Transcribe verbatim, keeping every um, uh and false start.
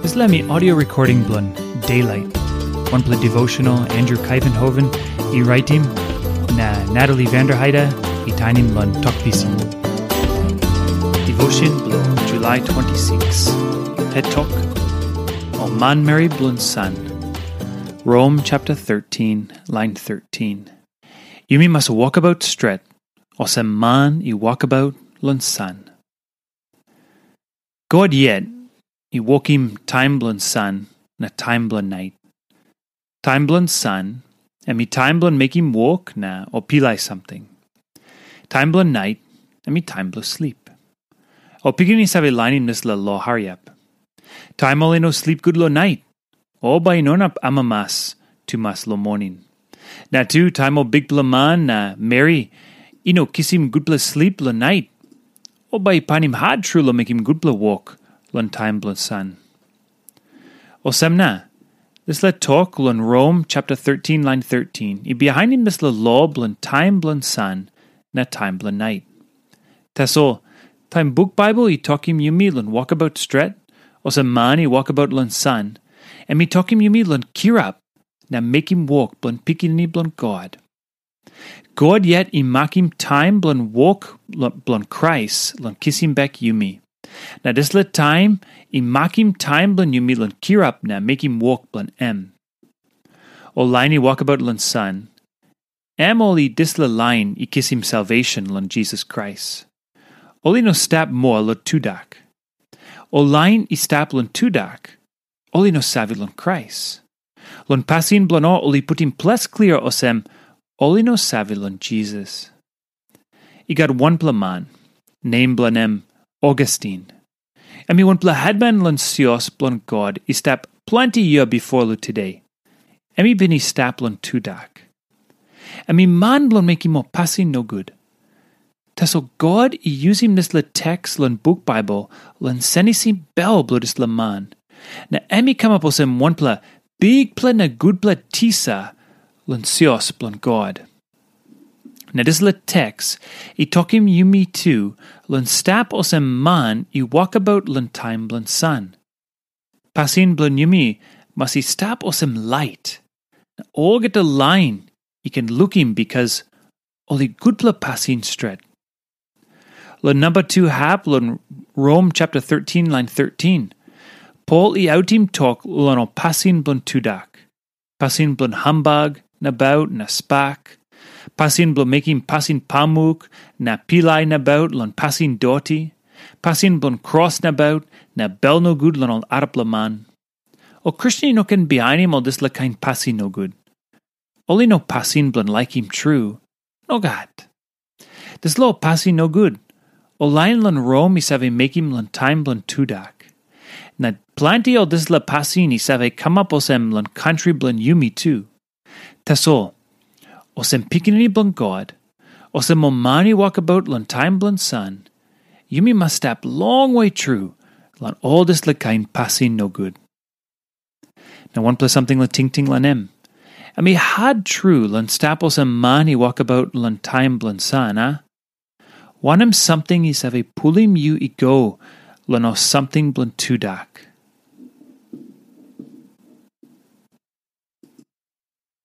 Dispela mi audio recording bilong Daylight, wanpela devotional Andrew Kaivenhoven i raitim, na Natalie Vanderheide i tainim long Tok Pisin. Devotion bilong July twenty-six. Het tok, o manmeri bilong san. Rom chapter thirteen, line thirteen. Yumi mas wokabaut stret, olsem man i wokabaut long san. God yet i wokim taim bilong san na taim bilong nait. Taim bilong san, em i taim bilong mekim wok na o pilai samting. Taim bilong nait, em i taim bilong slip. O pikinini save lainim dispela lo hariap. Taim ol i no slip gut long nait, o bai i no inap amamas tumas long moning. Na tu taim ol bikpela man na meri i no kisim gutpela slip long nait, o bai i painim hat tru long mekim gutpela wok long taim bilong san. Olsem na, dispela tok long Rom chapter thirteen, line thirteen, i bihainim dispela lo bilong taim bilong san na taim bilong nait. Tasol, taim buk Bible i tokim yumi long wokabaut stret, olsem man i wokabaut long san, em i tokim yumi long kirap na mekim wok bilong Pikinini bilong God. God yet i makim taim bilong wok lo-, bilong Krais long kisim bek yumi. Na dispela taim i makim taim bilong yumi long kirap na mekim wok bilong em. Ol lain i wokabaut long san, em ol i dispela lain i kisim salvation long Jisas Krais. Ol i no stap moa long tudak. Ol lain i stap long tudak, ol i no save long Krais. Long pasin bilong ol, ol i putim ples klia olsem, ol i no save long Jisas. I gat wanpela man, nem bilong em Augustin. Em i wanpela hetman long sios bilong God i stap planti yia bipo long tude. Em i bin i stap long tudak. Em i man bilong mekim ol pasin nogut. Tasol God i yusim dispela teks long buk Bible long senisim bel bilong dispela man. Na em i kamap olsem wanpela bikpela na gutpela tisa long sios bilong God. Na dispela teks i tokim yumi tu long stap olsem man i wokabaut long taim bilong san. Pasin bilong yumi mas i stap olsem lait, na olgeta lain i ken lukim, bikas ol i gutpela pasin stret. Long namba tu hap long Rom chapter thirteen, line thirteen, Pol i autim tok long ol pasin bilong tudak, pasin bilong hambag nabaut na spak, pasin bilong mekim pasin pamuk na pilai nabaut long pasin doti, pasin bilong kros nabaut na bel nogut long ol arapela man. Ol Kristen i no ken bihainim ol dispela kain pasin nogut. Ol i no pasin bilong laikim tru. Nogat. Dispela ol pasin nogut, ol lain long Rom i save mekim long taim bilong tudak. Na planti ol dispela pasin i save kamap olsem long kantri bilong yumi tu. Tasol, olsem pikinini bilong God, olsem ol man i wokabaut long taim bilong san, yumi mas stap longwe tru long ol dispela kain pasin nogut. Na wanpela samting long tingting long em. Em i hat tru long stap olsem man i wokabaut long taim bilong san, a? Wanem samting i save pulim yu i go long ol samting bilong tudak?